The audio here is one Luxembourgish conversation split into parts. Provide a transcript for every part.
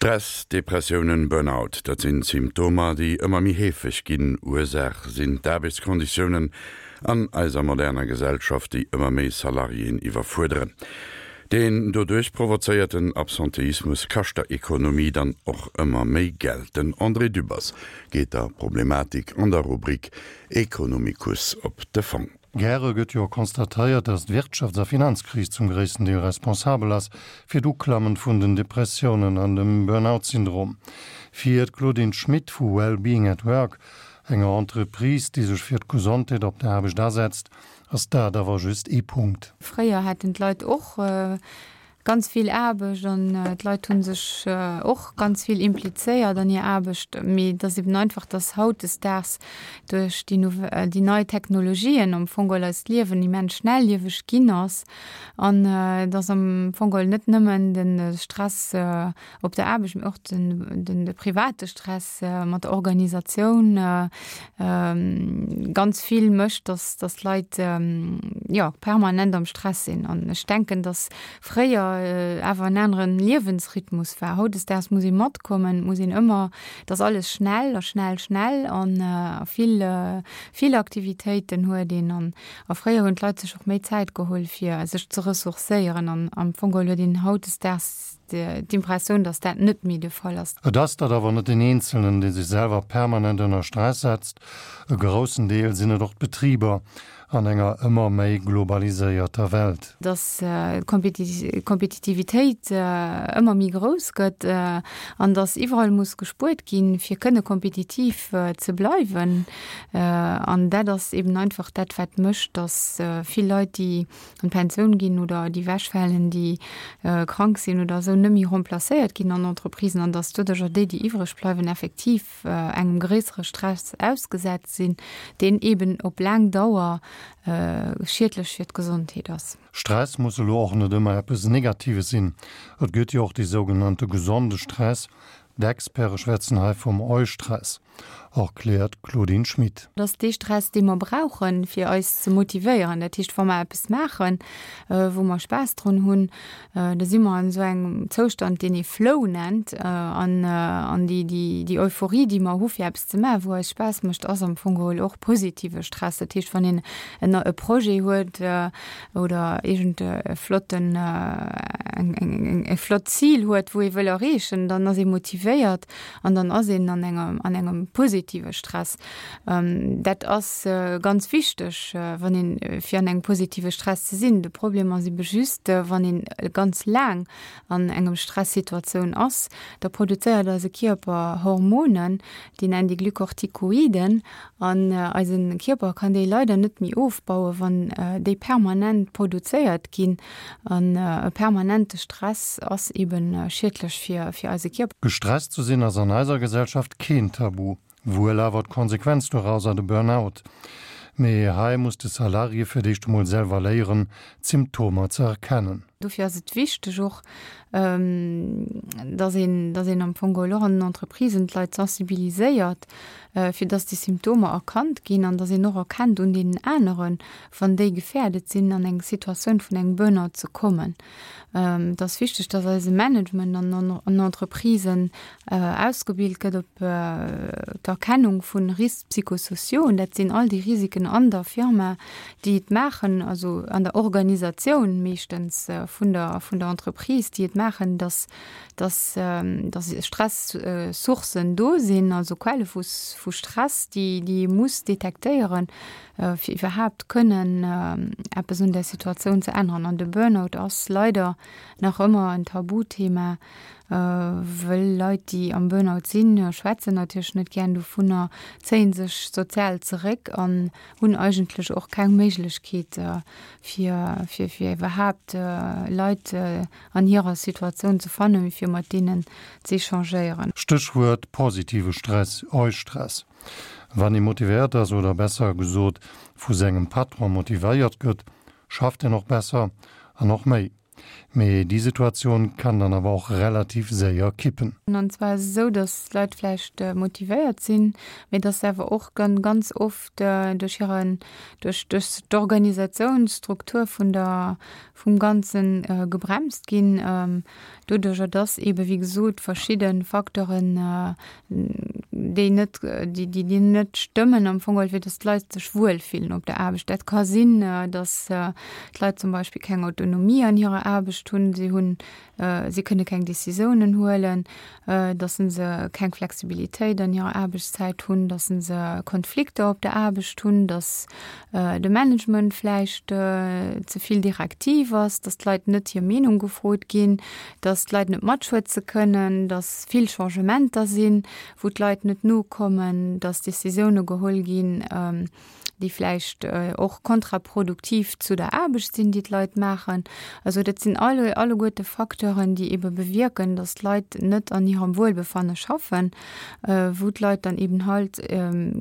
Stress, Depressiounen, Burnout, dat sinn Symptomer, déi ëmmer méi heefeg ginn. Ursaach sinn d'Aarbechtskonditiounen an eiser moderner Gesellschaft, déi ëmmer méi Salariéen iwwerfuerderen. Deen doduerch provozéierten Absenteismus kascht der Ekonomie dann och ëmmer méi Geld. Den André Dübbers geet der Problematik an der Rubrik Economicus op de Fong. Gäre gëtt jo constatéiert, datt d'Wirtschafts a Finanzkris zum gréissten Deel responsabel ass fir d'Uklammen vun den Depressiounen an dem Burnout-Syndrom. Fir d'Claudine Schmit vu Well-Being at Work, enger Entreprise, déi sech fir d'Gesondheet op der Aarbecht asetzt, ass dat awer just ee Punkt. Fréier haten d'Leit och Ganz vill Aarbecht an d'Leit hu sech och ganz vill implizéiert an hir Aarbecht. Mee et ass eben einfach, dass hautdesdaags duerch déi déi nei Technologien am Fong geholl eist Liewen immens schnellieweg ginn ass an dass am Fong geholl net nëmmen de Stress op der Aarbecht, mee och den de private Stress mat der Organisatioun ganz vill mécht, dass dass d'Leit jo permanent am Stress sinn. An ech denken, dass fréier awer en aneren Liewensrhythmus war. Hautdesdaags muss ee matkommen, muss een ëmmer, et ass alles schnell a schnell, schnell an a vill vill Aktivitéiten huet een. An a fréier hunn d'Leit sech och méi Zäit geholl fir sech ze ressourcéieren an am Fong geholl huet een hautdesdaags d'Impressioun, datt dat net méi de Fall ass. Et ass dat awer net den Eenzelnen, dee sech selwer permanent ënner Stress setzt. E groussen Deel sinn et och d'Betriber an enger ëmmer méi globaliséierter Welt. Datt d'Kompetitivitéit ëmmer méi grouss gëtt an datt iwwerall muss gespuert ginn, fir kënne kompetitiv ze bleiwen. An dat ass eben einfach dat, wat mécht, datt vill Leit, déi an d'Pensioun ginn oder déi wechfalen, déi krank sinn oder esou, net méi remplacéiert ginn an Entreprisen an dass doduercher déi, déi iwwreg bleiwen, effektiv engem gréissere Stress ausgesat sinn, deen eeben op laang Dauer schiedlech fir d'Gesondheet ass. Stress muss elo och net ëmmer eppes Negatives sinn. Et gëtt jo och dee sougenannte gesonde Stress. D'Experte schwätzen hei vum Eustress. Erkläert d'Claudine Schmit. Et ass dee Stress, dee mer brauchen, fir eis ze motivéieren. Dat heescht, wa mer eppes maachen, wou mer Spaass drun hunn, da si mer an esou engem Zoustand, deen ee Flow nennt. An déi Euphorie, déi mer hu fir eppes ze maachen, wou eis Spaass mécht, ass am Fong geholl och positive Stress. Dat heescht, wann een e Projet huet oder iergend e flotten, e flott Zil huet, wou ee wëll erreechen, dann ass ee motivéiert. An dann ass een an engem, an engem positive Stress. Dat ass ganz wichteg, wann een, fir an engem positive Stress ze sinn. De Problem ass ebe just, wann een ganz laang an engem Stressituatioun ass, da produzéiert eise Kierper Hormonen, déi nennen déi Glucorticoiden, an eise Kierper kann déi leider net méi ofbauen, wann déi permanent produzéiert ginn. An e permanente Stress ass eben schiedlech fir fir eise Kierper. Gestresst ze sinn ass an eiser Gesellschaft keen Tabu, wuel awer d'Konsequenz dorauser, de Burnout. Mee hei muss de Salarié fir d'éischt emol selwer léieren, d'Symptomer ze erkennen. Dofir ass et wichteg och, dass een, dass een am Fong geholl och an den Entreprisen d'Leit sensibiliséiert, fir dass déi Symptomer erkannt ginn an dass een och erkennt un deenen aneren, wann déi gefährdet sinn, an eng Situatioun vun engem Burnout ze kommen. Et ass wichteg, dass eise Management an an Entreprisen ausgebilt gëtt op d'Erkennung vu Risques psychosociaux. Und dat sinn all déi Risiken an der Firma, déi et maachen, also an der Organisatioun meeschtens vun der vun der Entreprise, déi et maachen, dass dass dass Stress-Sourcen do sinn, also Quelle vu vu Stress, déi déi ee muss detektéieren, fir iwwerhaapt kënnen eppes un der Situatioun ze änneren. An de Burnout ass leider nach ëmmer en Tabuthema, wëll Leit, déi am Burnout sinn, schwätzen natierlech net gären dovunner, zéie sech sozial zeréck an hunn eigentlech och keng Méiglechkeet, fir fir fir iwwerhaapt Leit an hirer Situatioun ze fannen, fir mat deenen z'échangéieren. Stéchwuert positive Stress, Eustress. Wann ee motivéiert ass, oder besser gesot vu sengem Patron motivéiert gëtt, schafft een och besser an och méi. Mee déi Situatioun kann dann awer och relativ séier kippen. An zwar ass et esou, datt d'Leit vläicht motivéiert sinn, mee datt se awer och ganz oft duerch hiren, duerch duerch d'Organisatiounsstruktur vun der, vum Ganze gebremst ginn, doduerjer datt eebe wéi gesot verschidde Facteuren, déi net, déi déi déi net stëmmen am Fong geholl, fir datt d'Leit sech wuel fillen op der Aarbecht. Dat ka sinn, datt d'Leit zum Beispill keng Autonomie an hirer Aarbecht hunn, si hunn si kënne keng Décisiounen huelen, datt se keng Flexibilitéit an hirer Aarbechtszäit hunn, datt se Konflikter op der Aarbecht hunn, datt de Management vläicht ze vill direktiv ass, datt d'Leit net hir Meenung gefrot ginn, datt d'Leit net matschwätze kënnen, datt vill Changementer sinn, wou d'Leit net nokommen, datt Décisioune geholl ginn, déi vläicht och kontraproduktiv zu der Aarbecht sinn, déi d'Leit maachen. Also dat sinn alle alleguerte Facteuren, déi ebe bewierken, datt d'Leit net an hirem Wuelbefanne schaffen, wou d'Leit dann eben halt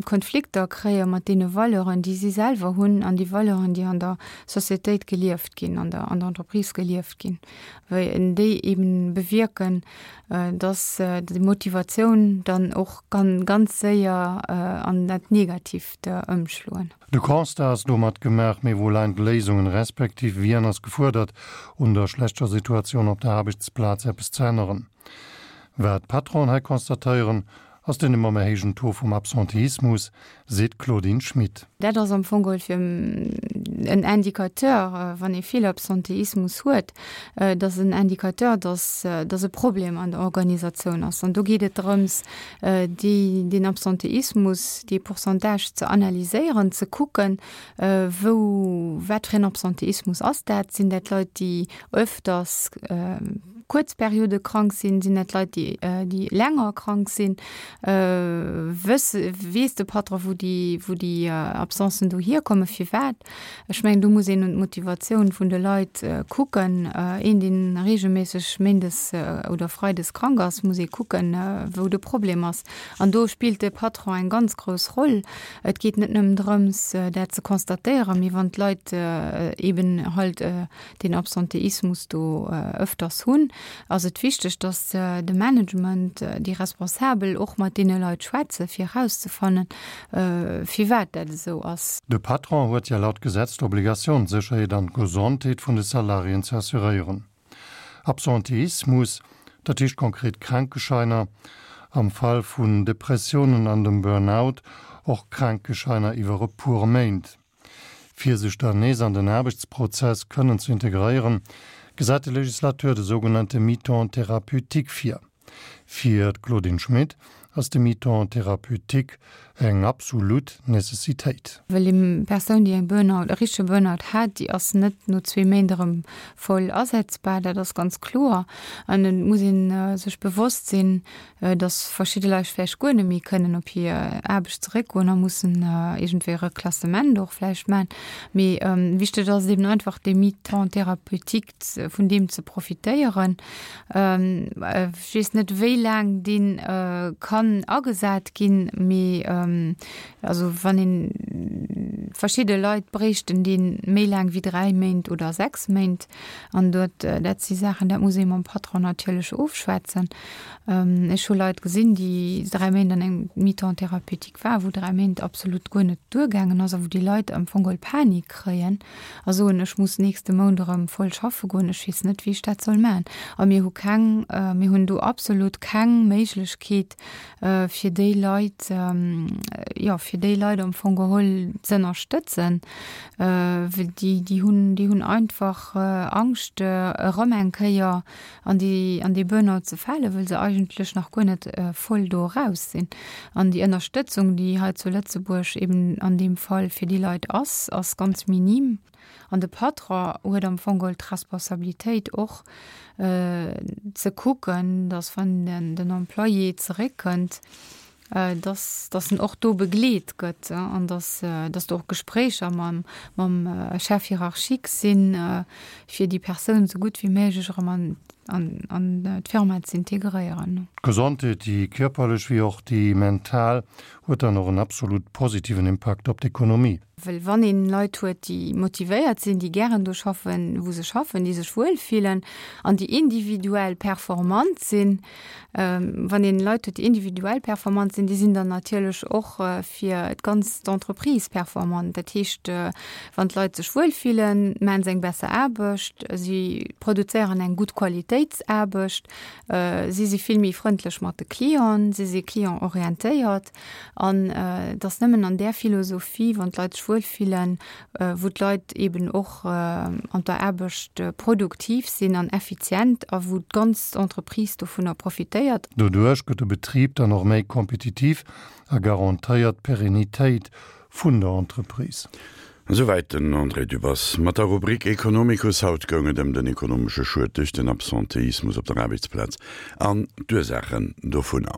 Konflikter kréie mat deene Valeuren, déi si selwer hunn an déi Valeuren, déi an der Societéit gelieft ginn, an der an der Entreprise gelieft ginn, wéi déi eben bewierken, dass déi Motivatioun dann och kann ganz séier an dat Negativt ëmschloen. De Constat ass domat gemaach, mee wou leien d'Léisungen, respektiv wien ass gefuerdert, un der schlechter Situatioun op der Aarbechtsplaz eppes ze änneren? Wat d'Patronen hei constatéieren, ass den ëmmer méi héijen Taux vum Absenteismus, seet d'Claudine Schmit. Dat ass am Fong geholl fir en Indicateur, wann ee vill Absenteismus huet, dat ass en Indicateur, dass dass e Problem an der Organisatioun ass. An do geet et drëms, déi deen Absenteismus, dee Pourcentage ze analyséieren, ze kucken, wou wat fir en Absenteismus ass dat? Sinn dat Leit, déi öfters kuerz Periode krank sinn, sinn dat Leit, déi déi länger krank sinn? Wëss weess de Patron, wou déi wou déi Absencen do hierkommen, firwat? Ech mengen, do muss een un d'Motivatioun vun de Leit kucken. Een, dee reegelméisseg méindes oder freides krank ass, muss ee kucken, wou de Problem ass. An do spillt de Patron eng ganz grouss Roll. Et geet net nëmmen drëms, dat ze constatéieren, mee wann d'Leit eeben halt deen Absenteismus do ëfters hunn, ass et wichteg, dass de Management, déi Responsabel och mat deene Leit schwätzen, fir erauszefannen, firwat dat esou ass. De Patron huet jo laut Gesetz d'Obligatioun, d'Sécherheet an d'Gesondheet vun de Salariéen ze assuréieren. Absenteismus, dat heescht konkret Krankescheiner, am Fall vun Depressiounen an dem Burnout och Krankescheiner iwwer e puer Méint. Fir sech dann nees an den Aarbechtsprozess kënnen ze integréieren, gesäit de Legislateur de sougenannte Mi-temps thérapeutique vir. Fir d'Claudine Schmit ass de Mi-temps thérapeutique eng absolut Necessitéit. Well eng Persoun, déi eng Burnout, e richtege Burnout hat, déi ass net no zwee Méint erëm voll asetzbar, dat ass ganz kloer. An et muss ee sech bewosst sinn, dass verschidde Leit vläicht guer net méi kënnen op hir Aarbecht zeréckgoen a mussen iergendwéi e Reklassement och vläicht maachen. Mee wichteg ass et eben einfach, dee Mi-temps thérapeutique, vun deem ze profitéieren. Ech weess net, wéi laang dee kann agesat ginn, mee also wann een, verschidde Leit bréichten dee méi laang wéi dräi Méint oder sechs Méint. An dort, dat si Saachen, dat muss ee mam Patron natierlech ofschwätzen. Ech hu Leit gesinn, déi dräi Méint an engem Mi-temps thérapeutique waren, wou dräi Méint absolut guer net duergaangen ass a wou déi Leit am Fong geholl Panik kréien a soen, ech muss nächste Mount erëm voll schaffe goen, ech weess net, wéi ech dat soll maachen. A mir hu keng, mir hunn do absolut keng Méiglechkeet, fir déi Leit, jo, fir déi Leit am Fong geholl z'ënnerstëtzen, well déi, déi hunn, déi hunn einfach Angscht, erëm eng Kéier an déi, an dee Burnout ze falen, wëll se eigentlech nach guer net voll do eraus sinn. An déi Ënnerstëtzung, déi hei zu Lëtzebuerg eben an deem Fall fir déi Leit ass, ass ganz minim. An de Patron huet am Fong geholl d'Responsabilitéit och ze kucken, datt wann den Employé zeréckkënnt. Dass, dass en och do begleet gëtt an dass, dass do och Gespréicher mam, mam Chef hiérarchique sinn, fir déi Persoun esou gutt wéi méiglech erëm an, an, an d'Firma ze integréieren. D'Gesondheet, déi kierperlech wéi och déi mental, huet dann och en absolut positiven Impakt op d'Ekonomie. Well wann een Leit huet, déi motivéiert sinn, déi gären do schaffen, wou se schaffen, déi sech wuel fillen an déi individuell performant sinn, wann een Leit huet, déi individuell performant sinn, déi sinn dann natierlech och fir d'ganz Entreprise performant. Dat heescht, wann d'Leit sech wuel fillen, maachen se eng besser Aarbecht, si produzéieren eng gutt Qualitéitsaarbecht, si si vill méi frëndlech mat de Clienten, si si clientorientéiert. An et ass nëmmen an där Philosophie, wann d'Leit sech wuelfillen, wou d'Leit eeben och an der Aarbecht produktiv sinn an effizient a wou d'ganz Entreprise dovunner profitéiert. Doduerch gëtt de Betrib dann och méi kompetitiv a garantéiert d'Perennitéit vun der Entreprise. Esouwäit den André Dübbers mat der Rubrik Economicus. Haut goung et ëm den ekonomesche Schued duerch den Absenteismus op der Aarbechtsplaz an d'Ursaachen dovunner.